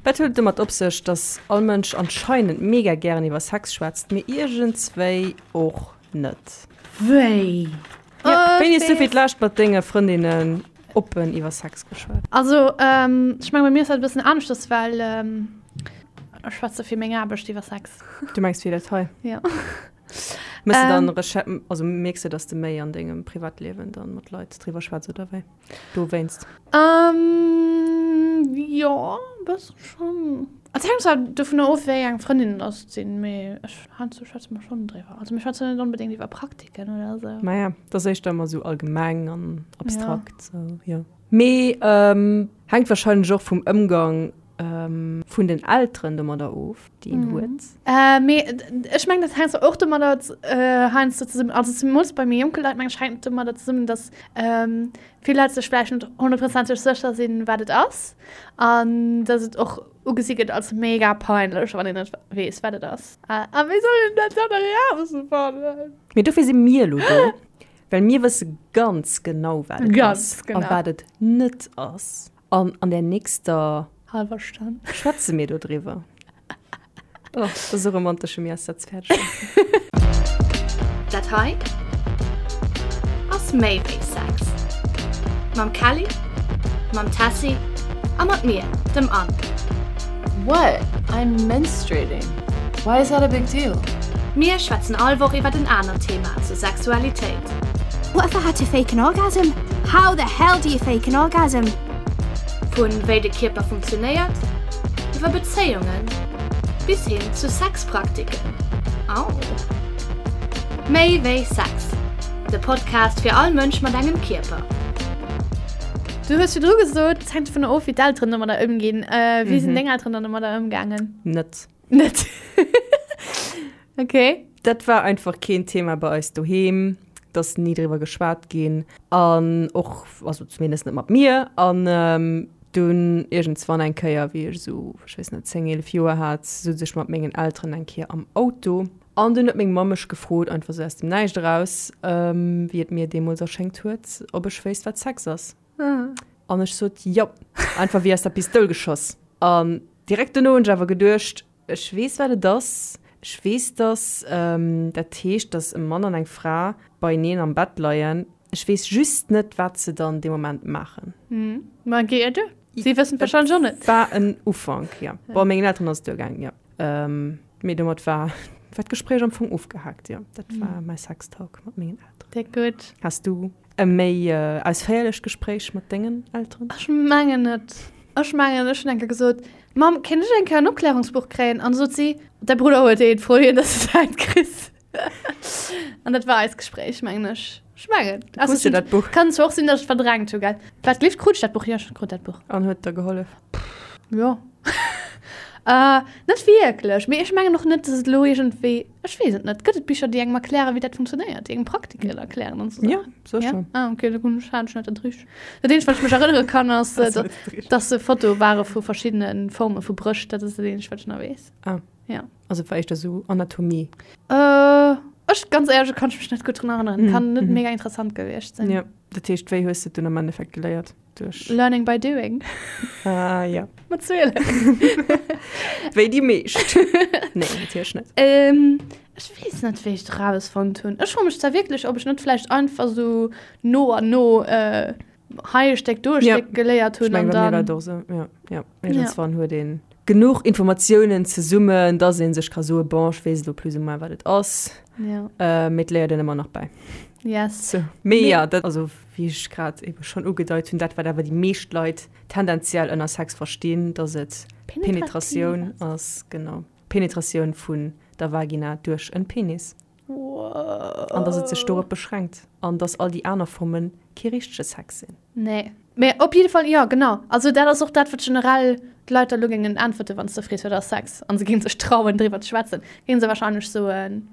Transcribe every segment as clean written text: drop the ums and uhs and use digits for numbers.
Wat huet et domat op sech, dass all Mënsch anscheinend mega gären iwwer Sex schwätzt, mee iergendswéi och net? Wéi? Ja, wéini hues du fir d'lescht mat denge Frëndinnen oppen iwwer Sex geschwat? Also, ech menge bei mir ass dat e bëssen aneschters, well ech schwätze fir meng Aarbecht iwwer Sex. Du mengs fir dat hei? Ja. Mëss de dann Recher-, also mierks de, dass de méi an dengem Privatliewen dann mat Leit driwwer schwätz oder wéi? Dowéinst? Ähm, jo, e bësse schonn. Et hänkt zwar dovunner of, wéi eng Frëndinnen dass et sinn, mee ech, heiansdo schwätze mer schonn driwwer. Also mir schwätzen net onbedéngt iwwer Praktiken oder esou. Maja, et ass éischter ëmmer esou allgemeng an abstrakt, sou, jo. Mee hänkt warscheinlech och vum Ëmgang vun den Elteren domadder of, déi een huet. Mee ech mengen, dat hänkt och domadder heiansdo zesummen, also zemools bei méi jonke Leit, mengen ech, hänkt et domadder zesummen, datt vill Leit sech vläicht net honnertprozenteg sécher sinn, wat et ass, an datt et och ugesi gëtt als mega peinlech, wann een net weess, wat et ass. A wéi soll een dat dann erausfannen? Mee dofir si mir elo do, well mir wësse ganz genau, wat et ass a wat et net ass. An an der nächster halber Stonn schwätze mir do driwwer. Oh, das ist so romantisch, mir ass dat fäerdeg. Dat hei ass méi wéi Sex. Mam Kelly, mam Tessy a mat mir, dem Anne. What? I'm menstruating. Why is that a big deal? Mir schwätzen all Woch iwwert en anert Thema zur Sexualitéit. What if I had to fake an orgasm? How the hell do you fake an orgasm? Vu wéi de Kierper funktionéiert, iwwer Bezéiungen bis hin zu Sexpraktiken. Au! Méi wéi Sex, de Podcast fir all Mënsch mat engem Kierper. Du hues virdru gesot, et hänkt dovunner of, wéi d'Elteren domadder ëmginn. Wéi sinn deng Elteren dann domadder ëmgaangen? Net. Net. Okay. Dat war einfach keen Thema bei eis doheem, et ass ni driwwer geschwat ginn an och, also zumindest net mat mir. An dunn iergendswann eng Kéier, wéi ech esou, ech weess net, 10, 11 Joer hat, souz ech mat mengen Elteren eng Kéier am Auto an dunn huet meng Mamm mech gefrot, einfach esou aus dem Näischt eraus, wéi et mir deemools erschéngt huet, ob ech wéisst, wat Sex ass. An ech sot jo, einfach wéi aus der Pistoul geschoss. An direkt dono hunn ech awer geduecht, Ech weess, wat et ass. Ech weess, dass dat heescht, dass e Mann an eng Fra beieneen am Bett leien. Ech weess just net, wat se dann dee Moment maachen. Ma géi et duer. Si wëssen et warscheinlech och net. War en Ufank, jo. Bon, mengen Elteren ass et duergaangen, jo. Mee domat war war d'Gespréich am Fong ofgehaakt, jo. Dat war mäi Sextalk mat mengen Elteren. Déck gutt. Has du E méi ausféierlecht Gespréich mat dengen Elteren? Ech mengen net. Ech mengen, ech hunn eng Kéier gesot, Mamm, kéint ech eng Kéier en Opklärungsbuch kréien? An du sot si, Däi Brudder huet eent, fro hien, dass du säint kriss. An dat war eist Gespréich, mengen ech. Ech mengen. Du krus jo dat Buch. Kann zwar och sinn, dass ech et verdrängt hu, gell? Wat gleeft, krut ech dat Buch? Jo, ech krut dat Buch. An huet der gehollef? Jo. Net wierklech. Mee ech mengen och net, dass et elo iergendwéi. Ech weess et net. Gëtt et Bicher, déi engem erklären, wéi dat funktionéiert, déi engem Praktiken erklären an esou Ja, Saachen? sécher. Ja? Ah, okay, da hunn ech, hat ech net dat richteg. Dat eenzegt, wat ech mech erënnere kann, ass, Ass net dat richtegt. dass se Fotoe ware vu verschiddene Forme vu Brëscht. Dat ass dat eenzegt, wat ech nach weess. Ah. Ja. Also et war éischter esou Anatomie. Äh, ech, ganz éierlech, kann ech mech net gutt drun erënneren. Kann net mega interessant gewiescht sinn. Ja. Dat heescht, wéi hues de et dunn am Endeffekt geléiert? Duerch. Learning by doing. Ah, ja. Mat 12. Wéi déi meescht. Nee, natierlech net. Ähm, ech weess net, wéi ech et erausfonnt hunn. Ech froe mech zwar wierklech, ob ech net vläicht einfach sou no an no äh, hei e Stéck, do e Ja. Stéck geléiert Ech hunn meng, an bei mir war dann. et och sou. Ja, ja. Iergendswann huet een genuch Informatiounen zesummen, dass ee sech ka soe, bon, ech weess elo plus ou moins, wat et ass. Ja. Äh, mee et léiert een ëmmer nach bäi. Yes. So. Mee ja, dat, also wéi ech grad ebe schonn ugedeit hunn, dat wat awer déi meescht Leit tendenziell ënner Sex verstinn, dass et Penetratioun ass, genau, Penetratioun vun der Vagina duerch en Penis. Wow. An dass et sech dorop beschränkt an dass all déi aner Forme kee richtege Sex sinn. Nee. Mee op jidde Fall, jo, genau. Also dat ass och dat, wat generell d'Leit da lo géingen äntwerte wann s de frees, wat ass Sex? An se géingen sech trauen driwwer ze schwätzen, géinge se wahrscheinlech soen,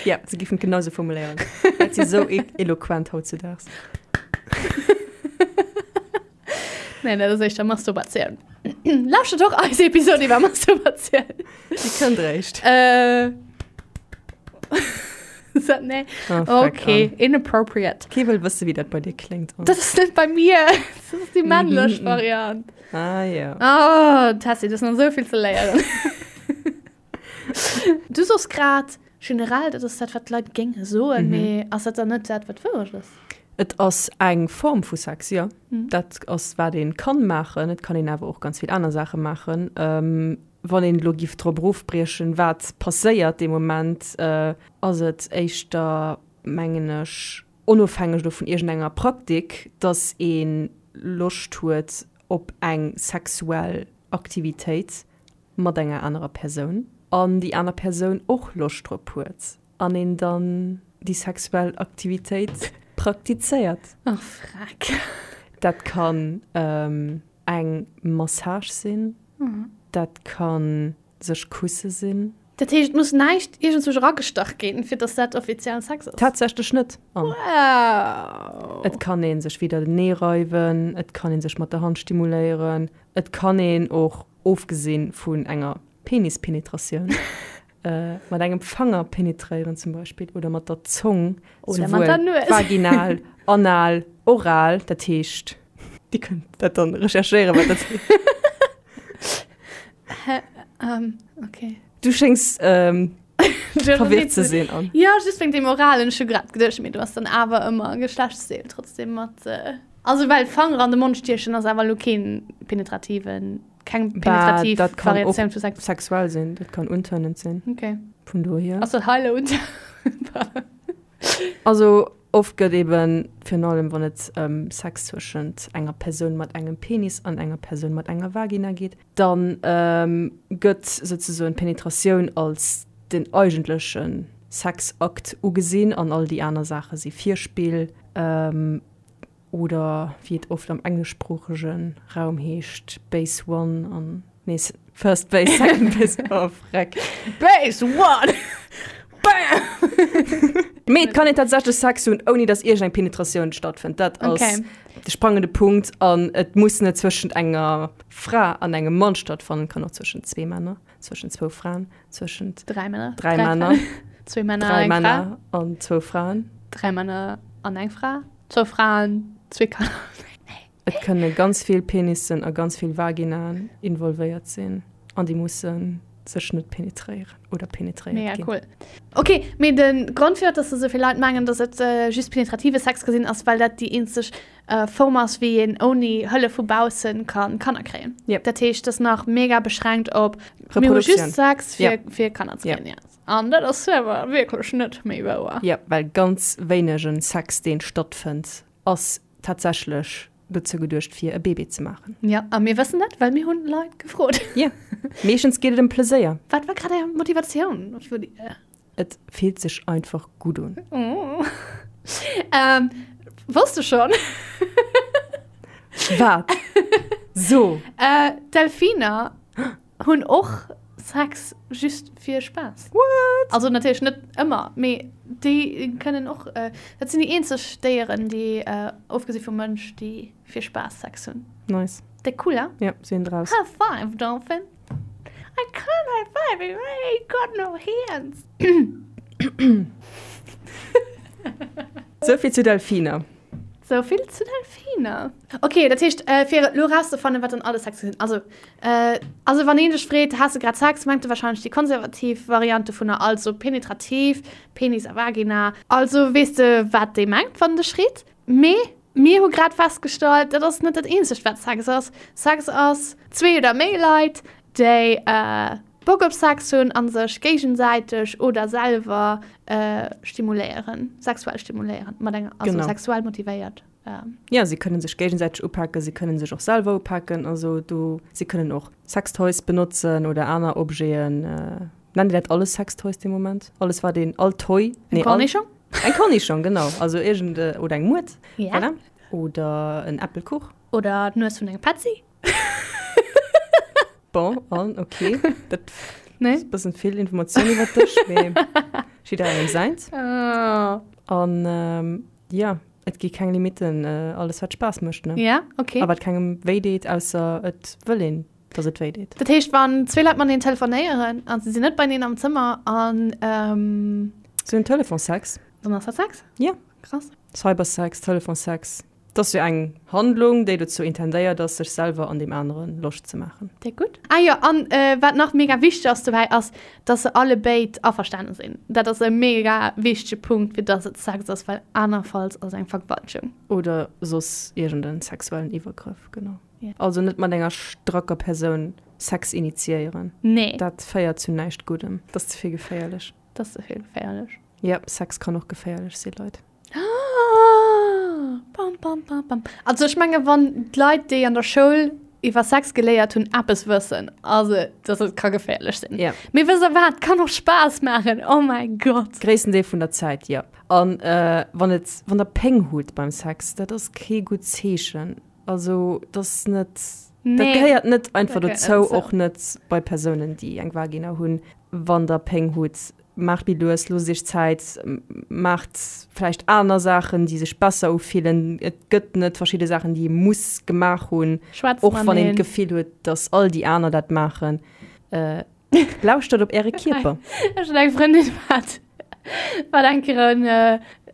Ja, se giffen et genau sou formuléieren. Dat si sou eloquent hautzedaags. Nee, dat ass éischter Masturbatioun. Lauschtert och eis Episod iwwer Masturbatioun. Déi kënnt réischt. Äh. Nee. Oh, fuck, Okay, Anne. inappropriate. Kee wëll wësse wéi dat bei dir kléngt. Anne. Dat ass net bei mir. Dat ass déi männlech Variant. Ah ja. Oh, Tessy, du hues nach esou vill ze léieren. Du soos grad generell, dat ass dat, wat d'Leit géinge soen, mee ass dat dann net dat, wat d'Wourecht ass? Et ass eng Form vu Sex, jo. Dat ass, wat ee kann maachen. Et kann een awer och ganz vill aner Saache maachen. Wann een elo giff drop erofbriechen, wat passéiert dee Moment, ass et éischter, mengen ech, onofhängeg elo vun iergendenger Praktik, dass ee Loscht huet op eng sexuell Aktivitéit mat enger anerer Persoun an déi aner Persoun och Loscht drop huet an een dann déi sexuell Aktivitéit praktizéiert. Ach, freck. Dat kann eng Massage sinn, dat kann sech kusse sinn. Dat heescht, et muss näischt iergendzwousch eragestach ginn, fir dass dat offiziell Sex ass? Tatsächlech net. An Wow! et kann ee sech widdertenee reiwen, et kann ee sech mat der Hand stimuléieren, et kann een och, ofgesi vun enger Penispenetratioun, mat engem Fanger penetréieren zum Beispill oder mat der Zong, Oder mat der Nues. vaginal, anal, oral, dat heescht, Dir kënnt dat dann recherchéieren, wat dat heescht. Hä? Ähm, okay. Du schéngs ähm, verwirrt ze sinn. An. Ja, just wéinst dem Oralen. Ech hu grad geduecht, mee du ass dann awer ëmmer Geschlechtsdeel trotzdem mat. Äh, also well Fanger an de Mond stiechen ass awer lo keen penetrativen, keng penetrativ dat kann och Variatioun vu Sex. sexuell sinn, dat kann untörnend sinn. Okay. Vun dohier. Ass dat heile und Also oft gëtt eben, virun allem wann et ëm Sex zwëschent enger Persoun mat engem Penis an enger Persoun mat enger Vagina geet, da gëtt souzesoen d'Penetratioun als den eigentleche Sexakt ugesinn an all déi aner Saache si Virspill. Oder wéi et oft am engleschsproochege Raum heescht, Base One an, nee, First Base, Second Base, oh freck. Base One! Bam! Mee et kann een tatsächlech Sex hunn, ouni datt iergendeng Penetratioun stattfënnt. Dat ass Okay. de sprangende Punkt. An et muss net zwëschent enger Fra an engem Mann stattfannen, et kann och zwëschent zwee Männer, zwëschent zwou Fraen, zwëschent Dräi Männer. Dräi Männer. Zwee Männer, dräi eng Fra. Männer an zwou Fraen. Dräi Männer an eng Fra. Zwou Fraen, zwee Kanner. Et kënne ganz vill Penissen a ganz vill Vaginaen involvéiert sinn an déi musse sech net penetréieren oder penetréiert Mega ginn. cool. Ok, mee de Grond firwat dass esou vill Leit mengen, dass et just penetrative Sex ka sinn, ass well dat déi eenzeg Form ass wéi een ouni Hëllef vu baussen ka Kanner kréien. Yep. Dat heescht, dat ass nach mega beschränkt op mir hu Reproduktion. just Sex fir, Yep. fir Kanner ze Yep. kréien. Yes. An dat ass awer wierklech net méi wouer. Jo, well ganz wéinegen Sex, deen stattfënnt, ass tatsächlech dozou geduecht, fir e Bébé ze maachen. Jo, a mir wëssen dat, well mir hunn Leit gefrot. Jo, meeschtens geet et ëm Pleséier. Wat war grad är Motivatioun? Et fillt sech einfach gutt un. Oh. Ähm, wosst du schonn? Wat? So! Äh, Delfiner hunn och Sex just fir Spaass. What? Also natierlech net ëmmer, mee déi kënnen och, äh, dat sinn déi eenzeg Déieren, déi, äh, ofgesi vum Mënsch, déi fir Spaass Sex hunn. Nice. Déck cool, hein? Ja, sinn draus. High five, Dolphin. I can't high five you, I ain't got no hands. Souvill zu Delfiner. Sou vill zu Delfiner. Ok, dat heescht, fir et elo erauszefannen, wat dann alles Sex sinn. Also, also wann een dech freet, Has de grad Sex, mengt e warscheinlech déi konservativ Variant dovunner, also penetrativ, Penis a Vagina. Also weess de, wat dee mengt, wann en dech freet. Mee mir hu grad festgestallt, dat ass net dat eenzegt, wat Sex ass. Sex ass zwee oder méi Leit, déi Bock op Sex hunn a sech géigesäiteg oder selwer stimuléieren, sexuell stimuléieren, mat enger, also Genau. sexuell motivéiert. Ja, si kënnen sech géigesäiteg upaken, si kënnen sech och selwer upaken, also do, si kënnen och Sextoys benotzen oder aner Objeten. Nennt Dir dat alles Sextoys dee Moment? Alles wat een, all Toy? Eng Nee, all, Cornischong? eng Cornischong, genau, also iergend, oder eng Muert, Ja. voilà. Oder en Äppelkuch. Oder d'Nues vun engem Petzi. Bon, an, okay. Dat Nee? ass e bëssen vill Informatioun iwwer dech, mee jidderengem säins. Oh. An ähm, ja, et gi keng Limitten, äh, alles wat Spaass mécht, ne? Ja, okay. A wat kengem wéi deet, ausser et wëll een, dass et wéi deet. Dat heescht, wann zwee Leit mateneen telefonéieren an se sinn net beieneen am Zëmmer an ähm. Se hunn Telefonsex. Dann ass dat Sex? Jo. Krass. Cybersex, Telefonsex, 't ass jo eng Handlung, déi dozou intendéiert ass, sech selwer an deem anere Loscht ze maachen. Déck gutt. Ah jo, an wat nach mega wichteg ass dobäi ass, dass se alle béid averstane sinn. Dat ass e mega wichtege Punkt, fir dass et Sex ass, well anerfalls ass et eng Vergewaltegung. Oder soss iergend en sexuellen Iwwergrëff, genau. Also net mat enger stracker Persoun Sex initiéieren. Nee. Dat féiert zu näischt Guddem. Dat ass ze vill geféierlech. Dat ass ze vill geféierlech. Yep, Sex kann och geféierlech sinn, Leit. Bam, bam, bam, bam. Also ech menge wann d'Leit, déi an der Schoul iwwer Sex geléiert hunn, eppes wëssen, ass et, dass et ka geféierlech sinn. Ja. Mee wësst der wat, kann och Spaass maachen, oh mäi Gott. Gréissten Deel vun der Zäit, jo. An wann et, wann der Péng hutt beim Sex, dat ass kee gutt Zeechen. Also dat ass net, dat Nee. gehéiert net einfach Dat gehéiert net dozou, dozou. och net bei Persounen, déi eng Vagina hunn. Wann der Péng hutt, maacht méi lues, loosst iech Zäit, maacht vläicht aner Saachen, déi sech besser ufillen. Et gëtt net verschidde Saachen, déi ee muss gemaach hunn, Schwätzt och wann een mateneen. d'Gefill huet, dass all déi aner dat maachen. Lauschtert op äre Kierper. Ech hunn eng Frëndin, wat wat eng Kéier en,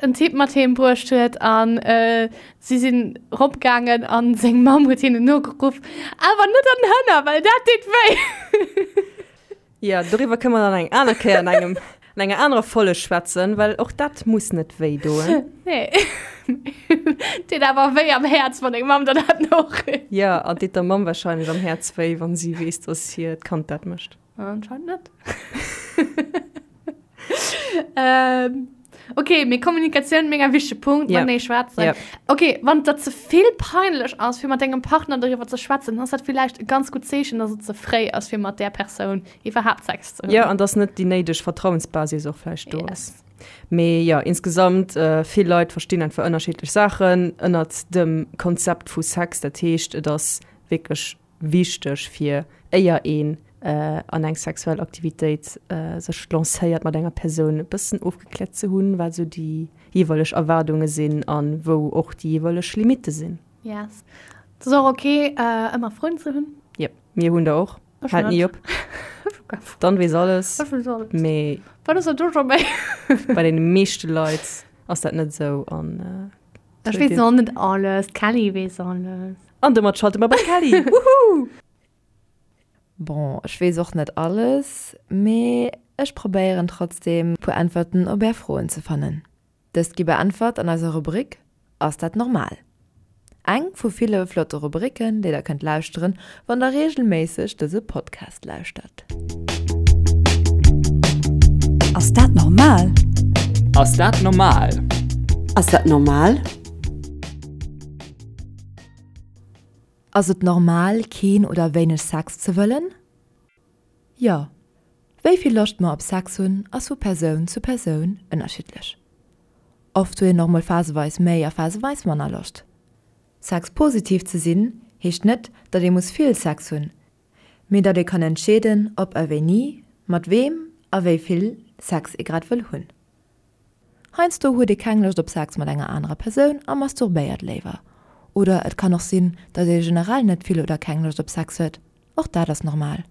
en Typ mat heem bruecht huet an si sinn eropgaangen an seng Mamm huet hinnen nogeruff, Awer net an den Hënner, well dat deet wéi! Jo, doriwwer kënne mer dann eng aner Kéier an engem, an enger anerer Folleg schwätzen, well och dat muss net wéi doen. Nee. Deet awer wéi am Häerz, wann deng Mamm der dat norifft. Jo, an deet der Mamm wahrscheinlech am Häerz wéi, wann si weess, dass hiert Kand dat mécht. Anscheinend net. ähm, okay, mee Kommunikatioun, mega wichtege Punkt, Ja. matenee schwätzen. Ja. Okay, wann et der ze vill peinlech ass, fir mat dengem Partner doriwwer ze schwätzen, dann ass dat villäicht e ganz gutt Zeechen, dass et ze fréi ass, fir mat där Persoun iwwerhaapt Sex ze hunn. Jo, an dass net déi néideg Vertrauensbasis och vläicht do ass. Yes. Mee jo, insgesamt, vill Leit verstinn einfach ënnerschiddlech Saachen ënnert dem Konzept vu Sex. Dat heescht, et ass wierklech wichteg fir, éier een an eng sexuell Aktivitéit sech lancéiert mat enger Persoun, e bëssen ofgekläert ze hunn, wat esou déi jeeweileg Erwaardunge sinn a wou och déi jeeweileg Limitte sinn. Yes. Et ass och ok, ëmmer Froen ze hunn. Yep, mir hunn der och. Ech Haalt net. ni op. Ech hu keng Froen. Dann weess alles. Ech weess alles. Mee. Wat ass dat do scho méi? Bei deene meeschte Leit ass dat net esou an. Ech weess och net alles, d'Kelly weess alles. An domat schalte mer bei d'Kelly! Woohoo! Bon, ech weess och net alles, mee ech probéieren trotzdem puer Äntwerten op är Froen ze fannen. Dëst gi beäntwert an eiser Rubrik Ass dat normal? Eng vu ville flotte Rubriken, déi der kënnt lauschteren, wann der reegelméisseg dëse Podcast lauschtert. Ass dat normal? Ass dat normal? Ass dat normal? Ass et normal, keen oder wéineg Sex ze wëllen? Jo. Wéi vill Loscht mer op Sex hunn, ass vu Persoun zu Persoun ënnerschiddlech. Oft huet een och mol phaseweis méi a phaseweis manner Loscht. Sexpositiv ze sinn, heescht net, datt ee muss vill Sex hunn, mee datt ee kann entscheeden, ob a wéini, mat weem a wéi vill Sex ee grad wëll hunn. Heiansdo huet ee keng Loscht op Sex mat enger anerer Persoun a masturbéiert léiwer. Oder et kann och sinn, datt ee generell net vill oder keng Loscht op Sex huet. Och dat ass normal.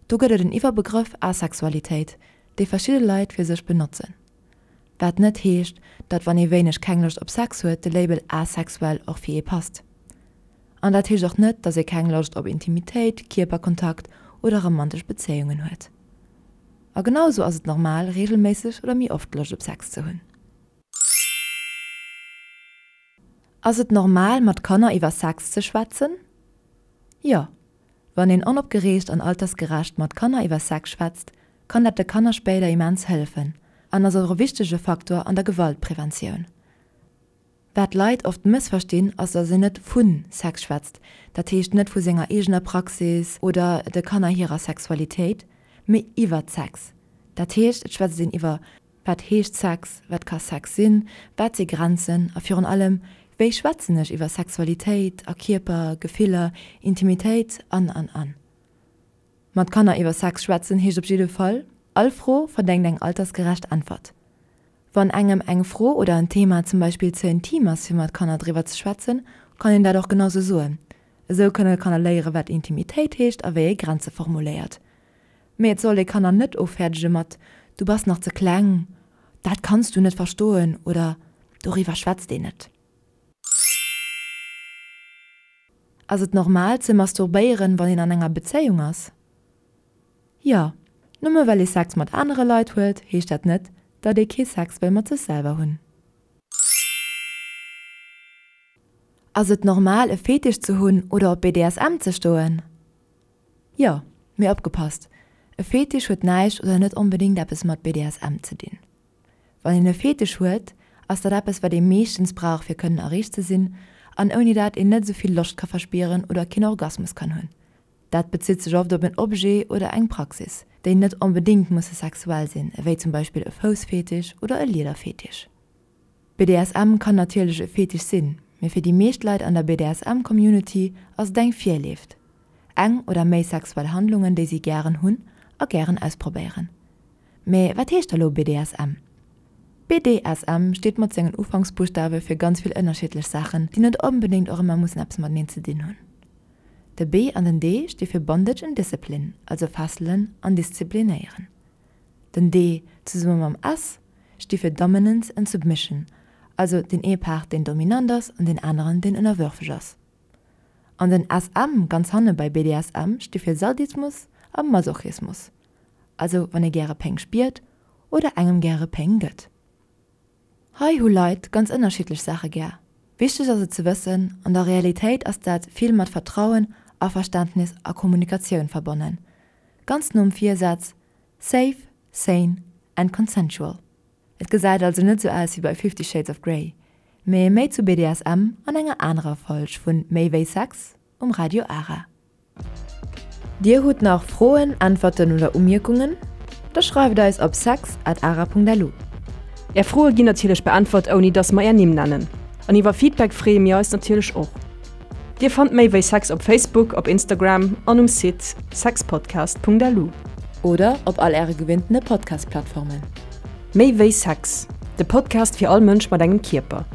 Do gëtt et en Iwwerbegrëff Asexualitéit, dee verschidde Leit fir sech benotzen. Wat net heescht, datt wann ee wéineg keng Loscht op Sex huet, de Label asexuell och fir ee passt. An dat heescht och net, datt ee keng Loscht op Intimitéit, Kierperkontakt oder romantesch Bezéiungen huet. A genau esou ass et normal, reegelméisseg oder méi oft Loscht op Sex ze hunn. Ass et normal, mat Kanner iwwer Sex ze schwätzen? Jo. Wann een onopgereegt an altersgerecht mat Kanner iwwer Sex schwätzt, kann dat de Kanner spéider immens hëllefen an ass och e wichtege Faktor an der Gewaltpreventioun. Wat d'Leit oft mëssverstinn, ass dass een net vu Sex schwätzt, dat heescht net vu senger eegener Praxis oder de Kanner hirer Sexualitéit, mee iwwert Sex. Dat heescht et schwätzt een iwwer wat heescht Sex, wat ka Sex sinn, wat si Grenzen a virun allem wéi schwätzen ech iwwer Sexualitéit a Kierper, Gefiller, Intimitéit an an an. Mat Kanner iwwer Sex schwätzen heescht op jidde Fall, all Fro verdéngt eng altersgerecht Äntwert. Wann engem eng Fro oder en Thema zum Beispill ze intim ass fir mat Kanner driwwer ze schwätzen, kann een dat och genau sou soen. Esou kënne Kanner léiere wat Intimitéit heescht a wéi ee Grenze formuléiert. Mee et sollt ee Kanner net offäerdege mat Du bass nach ze kleng. Dat kanns du net verstoen oder Doriwwer schwätzt een net. Ass et normal ze masturbéieren, wann een an enger Bezéiung ass? Jo. Nëmme well ee Sex mat anere Leit huet, heescht dat net, datt ee kee Sex wëll mat sech selwer hunn. Ass et normal e Fetisch ze hunn oder op BDSM ze stoen? Jo, mee opgepasst, e Fetisch huet näischt oder net onbedéngt eppes mat BDSM ze dinn. Wann een e Fetisch huet, ass dat eppes wat ee meeschtens brauch fir kënnen erreegt ze sinn an ouni dat een net esou vill Loscht ka verspieren oder keen Orgasmus kann hunn. Dat bezitt sech oft op en Objet oder eng Praxis, déi net onbedéngt musse sexuell sinn, ewéi zum Beispill e Foussfetisch oder e Liederfetisch. BDSM kann natierlech e Fetisch sinn, mee fir déi meescht Leit an der BDSM-Community ass et eng Virleeft. Eng oder méi sexuell Handlungen, déi si gären hunn a gären ausprobéieren. Mee wat heescht da lo BDSM? BDSM steet mat sengen Ufanksbuschtawe fir ganz vill ënnerschiddlech Saachen, déi net onbedéngt och ëmmer mussen eppes mateneen ze dinn hunn. De B an den D sti fir Bondage and Discipline, also fesselen an disziplinéieren. Den D zesumme mam S sti fir Dominance and Submission, also deen ee Part deen dominant ass an deen aneren deen ënnerwërfeg ass. An den SM ganz hanne bei BDSM sti fir Sadismus a Masochismus, also wann ee gäre Péng spiert oder engem gäre Péng gëtt. Hei hu Leit ganz ënnerschiddlech Saache gär. Wichteg ass et ze wëssen, an der Realitéit ass dat vill mat Vertrauen, Averständnis a Kommunikatioun verbonnen. Ganz nom Virsaz Safe, sane and consensual. Et gesäit also net sou aus wéi bei Fifty Shades of Grey, mee méi zu BDSM an enger anerer Folg vun Méi wéi Sex um Radio Ara. Dir hutt nach Froen, Äntwerten oder Umierkungen? Da schreift eis op sex at ara.lu. Är Froe ginn natierlech beäntwert ouni dass mer är Nimm nennen. An iwwer Feedback freeë mir eis natierlech och. Dir fannt méi wéi Sex op Facebook, op Instagram an um Site sexpodcast.lu. Oder op all äre gewinntene Podcast-Plattformen. Méi wéi Sex, de Podcast fir all Mënsch mat engem Kierper.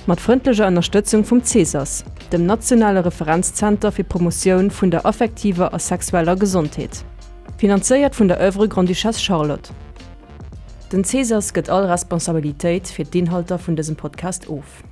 Mat frëndlecher Ënnerstëtzung vum CESAS, dem nationale Referenzzenter fir d'Promotioun vun der affektiver a sexueller Gesondheet. Finanzéiert vun der Oeuvre Grande-Duchesse Charlotte. Den CESAS gëtt all Responsabilitéit fir d'Inhalter vun dësem Podcast of.